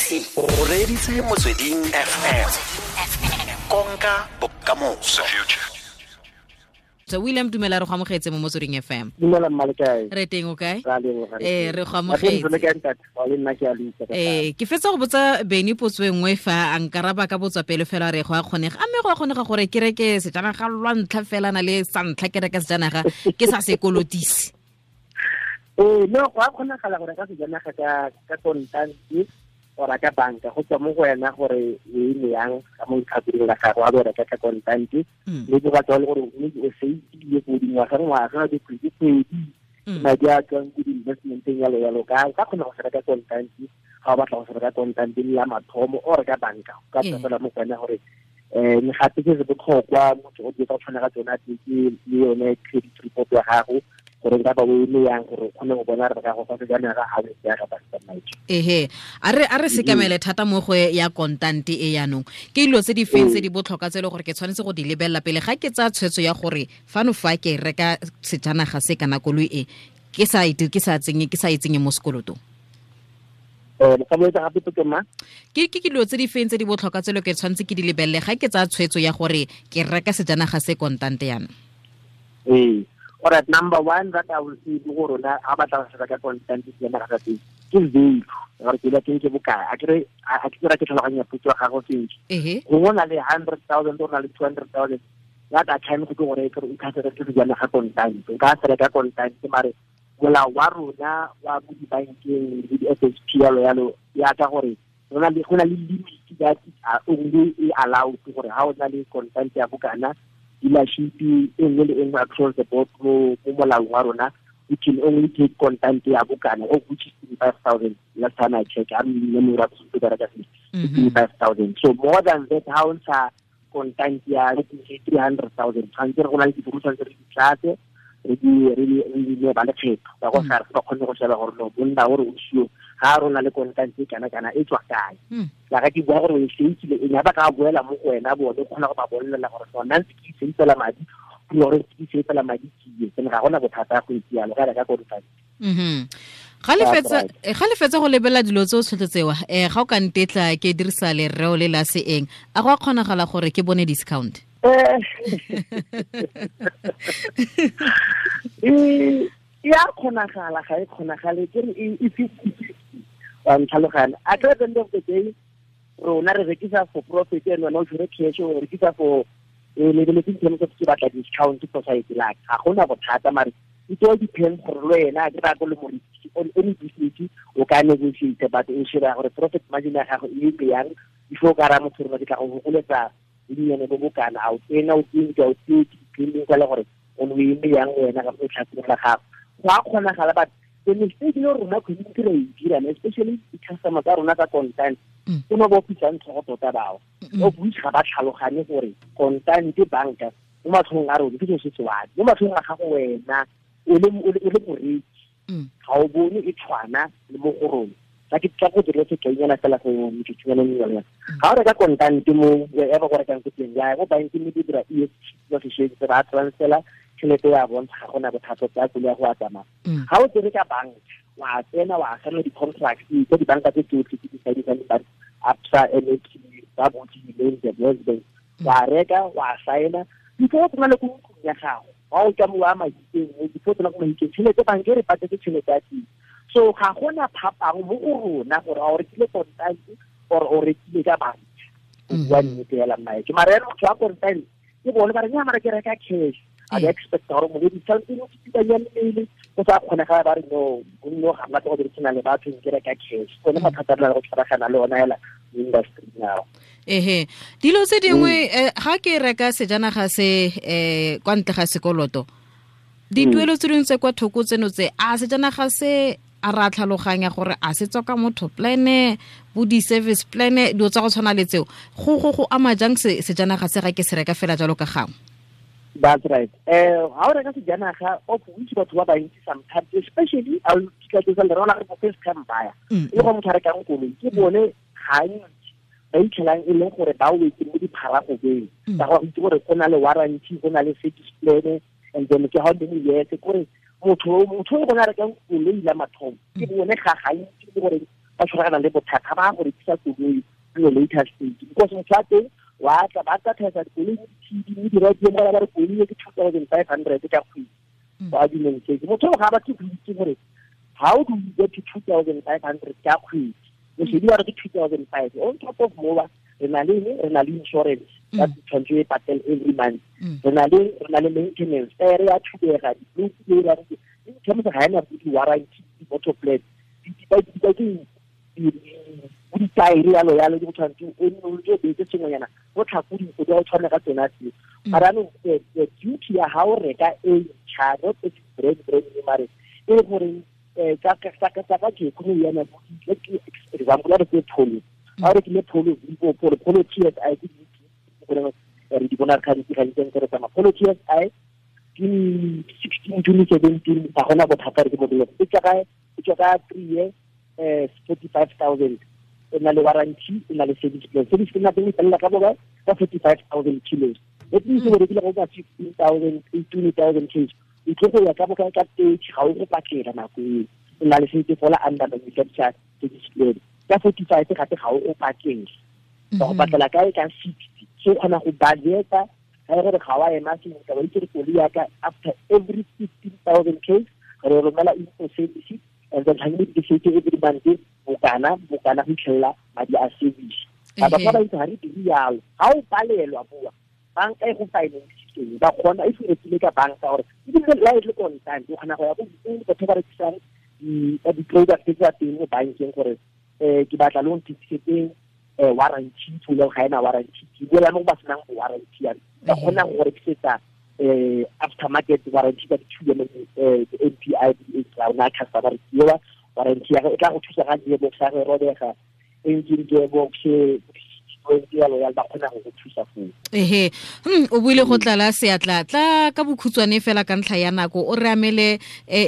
O reditse Motsweding FM. Konka bokamoso. So William, dumela, re go amogetse mo Motsweding FM. Dumela mma, le kae? Re teng, o kae? Ra leboga. Ee, re go amogetse. Le kae ntate? Wa le nna ke a le utlwa ka Ke fetsa go botsa Beny potso e nngwe fa a nkaraba ka botswa pele fela re go a kgonega. A mme go a kgonega gore ke reke sejanaga lwa ntlha fela na le sa ntlha ke reka sejanaga ke sa sekolotise? Ee, no, go a kgonagala gore ka sejanaga ka kontante ora ka banka, go tswa mo go wena gore o eme yang ka mo letlhakoreng la gago, a bo reka ka kontante. Mme ke batla le gore mme o seitile go dingwaga ngwaga, dikgwedi kgwedi, madi a tswang ko di-investmenteng yalo yalo, ka kgona go se reka kontante ga o batla go se reka kontante le ya mathomo o reka banka, o ka tswa fela mo go wena gore mme gape se se botlhokwa motho o di ka tshwana ka tsona ke le yone credit report ya gago, gore nka ba o eme yang gore o kgone go bona re ka go fa sejanaga ga o ya ka banka madi. Ehe, a re sekamele thata mo go ya kontante e yanong. Ke dilo tse di feng tse di botlhokwa tse e le gore ke tshwanetse go di lebelela pele ga ke tsaya tshwetso ya gore fano fa ke reka sejanaga se kana koloi e ke sa ite ke sa tsenye ke sa e tsenye mo sekolotong? Ka boetsa gape potso ma? Ke dilo tse di feng tse di botlhokwa tse e le ke tshwanetse ke di lebelele ga ke tsaya tshwetso ya gore ke reka sejanaga se kontante yana? Ee. Alright, number one that I will say ke gore rona ga batla go se reka kontante sejanaga sa teng ke value, gore ke teng ke bokae. A kere a ke tsira ke tlhaloganya potso ya gago sentle? Ehe. Gongwe o na le 100,000, o na le 200,000, that a time go ke gore ke o ka se reke sejanaga kontante, o ka se reka kontante, mare molao wa rona wa mo dibankeng le di-FSP yalo yalo ya ka gore go na le limit that is only e allowed gore ha o na le kontante ya bokana, dealership e nngwe le e nngwe across the board mo molaong wa rona, we can only take kontante ya bokana, of which is 25,000. Last time I check, I'm memory of 25,000. So more than that, ha o ntsha kontante ya, let me say, 300,000, tshwanetse re go na le dibuka, tshwanetse re di tlatse, re di ne ba lekgetho ba go SARS ba kgone go sheba gore no monna gore o sio ga rona le kontante e kana kana e tswa kae. La ga ke bua gore o e seitsile eng, ba ka boela mo go wena, bone o kgona go ba bolelela gore so nna ntse ke seitsela madi gore ke seitsela madi ke tsene, ga gona bothata go itse yalo ga reka kontante. Ga le fetsa go lebelela dilo tse o tshotse tsewa, ga o ka ntetla ke dirisa lereo le la seeng, a go a kgonagala gore ke bone discount? E a kgonagala, ga e kgonagale, ke re e 50-50, wa ntlhaloganya? At the end of the day rona re rekisa for profit, and wena o tshwere cash, o rekisa for lebeletse in terms of ke batla discount for site la ga gona bothata, mare it all depends gore le wena ke raya ko le morekisi on any business o ka negotiate, but o sheba gore profit margin ya gago e eme yang before o ka raya motho gore ke tla go fokoletsa bonnyane bo bokana, a o tsena o 20, a o 30, depending ka le gore o ne o eme yang wena ka mo tlhakoreng la gago. Go a kgonagala, but the mistake le rona community re e dirang, especially di-customer tsa rona tsa kontante, ke no ba opisang tlhogo tota bao, of which ga ba tlhaloganye gore kontante banka mo matlhong a rona ke selo se se one, mo matlhong a gago wena o le moreki ga o bone e tshwana le mo go rona. Tla ke tla go dira sekainyana fela go metsotsonyana mengwe. Ga o reka kontante mo wherever go rekang ko teng, ya mo bankeng di dira EFT ba sešweng se ba transfera tšhelete ya bontsha, ga gona bothata tsa koloi ya go a tsamaya. Ga o tsere ka banka, wa tsena wa signa di-contract tsa dibanka tse tsotlhe tse di signisang ba Absa, NAB, ba botse the West Bank, wa reka wa signa before o tsena le ko ntlong ya gago, wa o tswa mo wa Mahikeng, before o tsena ko Mahikeng, tšhelete banka e re patetse tšhelete ya teng. So ga gona phapang mo go rona gore a o rekile kontante or o rekile ka banka, o bua nnete fela mmae. Mara ena motho wa kontante ke bone ba re nya, mara ke reka cash, a ba expect gore mo discount o tsitsibanya mmele go sa kgonega, ba re no gonne ga batla go dirisana le batho, ke reka cash. Gone mathata a re na le go tshwaragana le ona fela mo industry now. Ehe, dilo tse dingwe, ga ke reka sejanaga se kwa ntle ga sekoloto, dituelo tse dingwe tse kwa thoko tseno tse, a sejanaga se a ra tlhaloganya gore a se tswa ka motho plan bo di-service plan, dilo tsa go tshwana le tseo, go ama jang sejanaga se ga ke se reka fela jalo ka gangwe? That's right. Ha o reka sejanaga, of which batho ba bantsi sometimes, especially a ke tla le rona re first time buyer, e le gore motho a rekang koloi ke bone gantsi ba itlhelang e leng gore ba wetse mo dipharagobeng ka gore itse gore go na le warranty, go na le service plan, and then ke how many years, kore motho o gona rekang koloi la mathomo ke bone ga gantsi le gore ba tshwaragana le bothata ba go rekisa koloi in the later stage, because motho wa teng wa tla ba tla thaisa dikoloi mo di-TV mo di-radio mo ba re koloi e ke 2,500 ka kgwedi. For argument's sake, motho ga ba tle go itse gore how do you get to 2,500 ka kgwedi. Moshedi wa re ke 2,500 on top of more re na le insurance that tshwanetse e patele every month, re na le maintenance re ya thubega di-blue in terms of ga ena di-warranty di-motor plan di-taere yalo yalo di go tshwanetse o nne o ntse o beetse sengwenyana go tlhako dinko di a o tshwane ka tsona tseo. Mara anong the duty ya ga o reka e ntšha, not e brand brand mare e le gore tsa ka economy ya nako, example ya re ke Polo, ga o rekile Polo Vivo, Polo TSI ke re di bona gantsi gantsi ntse re tsamaya Polo TSI ke 16 2017 ga gona bothata re ke modelo e tswa ka 3 year 45,000, e na le warranty, e na le service plan. Service plan ya teng e felela ka bokae? Ka 45,000 kilos. That means o rekile go ka 15,000 18,000 kilos, o tlo go ya ka bokae? Ka 30, ga o go patela nako eo, o na le sentse fola under manufacture service plan. Ka 45 gape ga o go patele, ba go patela kae? Ka 60. So o kgona go budgeta ga e gore ga wa ema sentle, wa itse gore koloi ya ka after every 15,000 k's re romela in for service, and then tshwanetse ke setse every month bokana go fitlhelela madi a service. Ba ba itse ga re dire yalo, ga o palelwa boa banka e go finance ba kgona e rekile ka banka gore ebile la e le kontant, o kgona go ya ko batho ba rekisang di-product tsa teng mo bankeng gore ke batla loan certificate warranty to le ga ena warranty, ke buela mo ba senang warranty ya ba kgona go rekisetsa aftermarket warranty ka di-2 MPI di rona customer ke warranty ya e tla go thusa ga gearbox ya go robega, engine gearbox yalo yalo, ba kgona go go thusa foo. Ehe, o buile go tlala seatla tla ka bokhutshwane fela ka ntlha ya nako, o re amele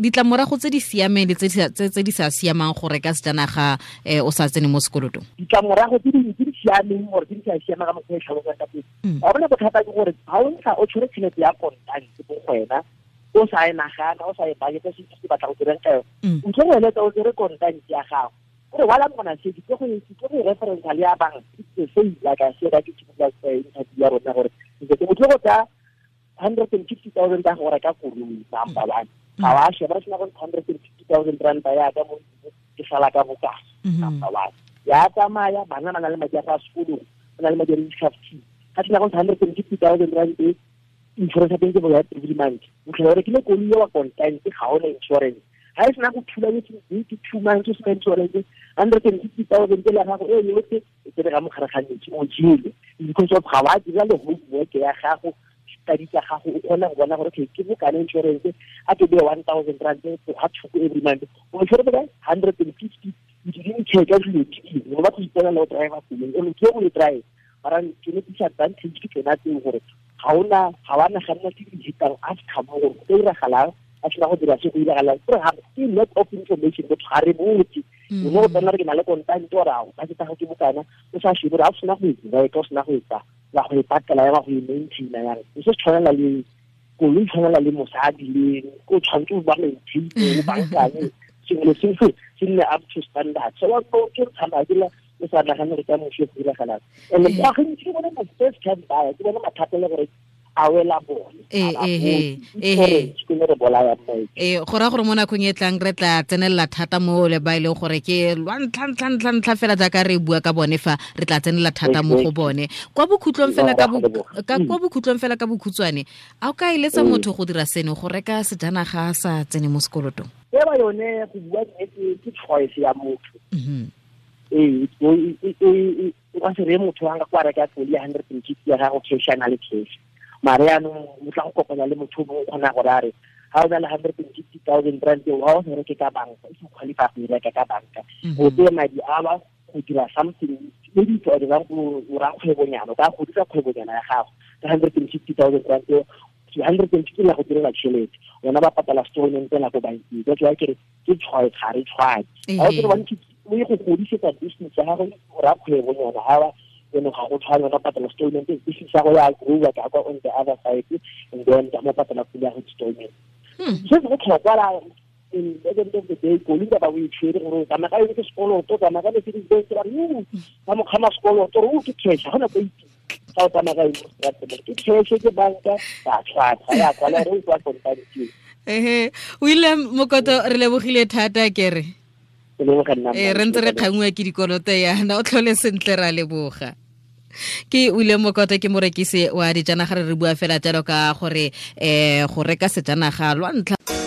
ditlamorago tse di siameng le tse di sa siamang go reka sejanaga o sa tsene mo sekolotong. Ditlamorago tse di siameng gore tse di sa siamang ka mokgwa e tlhalosang ka teng, ga bona bothata ke gore ga o ntsha o tshwere tšhelete ya kontante mo go wena, o sa e nagana, o sa e budgeta se se batla go dirang ka yone, o tlo go eletsa o tsere kontante ya gago gore while I'm gonna say ke go reference le ya bank, it's the same like I said, I ke tshimola interview ya rona gore ke motho go tsa 150,000 ka go reka koloi number one, ga wa sheba re sena go 150,000 rand ya ka mo ke sala ka bokae number one, ya tsamaya bana ba na le madi a sekolo, ba na le madi a di-fifty, ga sena go 150,000 rand e insurance ya teng ke bokae every month, o tlhola o rekile koloi ya wa kontante ga o na insurance, ga e sena go thula ke 2 months o sena insurance, 150,000 la gago e yotlhe e tsere ka mogare ga metsi o jele, because of ga wa dira le homework ya gago, study tsa gago, o kgona go bona gore ke bokana insurance a ke beye 1,000 rand go ga thoko every month, o tshwere bokae 150, you didn't check ka dilo tse dingwe, o batla go ipona le o driver koloi, o ke go e drive, mara tsone disadvantage ke tsona tseo gore ga wa naganna tse di hetang after mo gore go ka iragalang a sena go dira se go iragalang, gore ga ke lack of information, motho ga re botse, o ne go tsena re ke na le kontante ore ao ka tsa gago ke bokana, o sa shebe gore ga o sena go e reka, o sena go e tsa wa go e patela ya wa go e maintaina yang, o se tshwanela le koloi, tshwanela le mosadi le o tshwanetse o ba maintain o bankanye sengwe le sengwe se nne up to standard. So wa ke tsamaya ke la o sa nagane gore ka moso go iragalang, and go gantsi ke bone mo first time buyer, ke bone mathata le gore a wela bone. Go raya gore mo nakong e tlang re tla tsenelela thata mo le ba e leng gore ke lwa ntlha fela jaaka re bua ka bone fa re tla tsenelela thata mo go bone. Kwa bokhutlong fela ka bokhutshwane, a o ka eletsa motho go dira seno, go reka sejanaga a sa tsene mo sekolotong? Eba yone go bua nnete ke choice ya motho. Ee, o ka se reye motho a nka kwa reka koloi ya 150 ya gago cash a na le cash, mare yaanong o tla go kopana le motho o mongwe o kgona gore a re ga o na le 150,000 rand eo ga o se reke ka banka, e se qualify go e reka ka banka, o tseye madi a ba go dira something, maybe for example o ra kgwebonyana, o ka godisa kgwebonyana ya gago ka 150,000 rand eo, 150 la go direla tšhelete, wena ba patala installment la ko bankeng. That's why ke re ke choice, ga re tshwane. Ga o kere o ye go godisetsa business ya gago, o ra kgwebonyana ga ba ene ga go tshwane, wena patala installment, business ya go ya grow ka kwa on the other side, and then ka mo patala pula ya go installment. Se se botlhokwa la At the end of the day, koloi ba o e tshwere gore o tsamaya ka yone ke sekoloto, o tsamaya ka Mercedes Benz, ba re ba mo kgama sekoloto, gore o ke cash, ga gona ko itse ga o tsamaya ka yone mo ke cash, ke banka, ba tlhwatlhwa ya kwala gore o kwa kontane. Ehe, William Mokoto, re lebogile thata kere. Re ntse re kgangwa ke dikoloto yana, o tlhole sentle, ra leboga. Ke William Mokoto, ke morekisi wa dijanaga, re bua fela jalo ka gore go reka sejanaga lwa ntlha.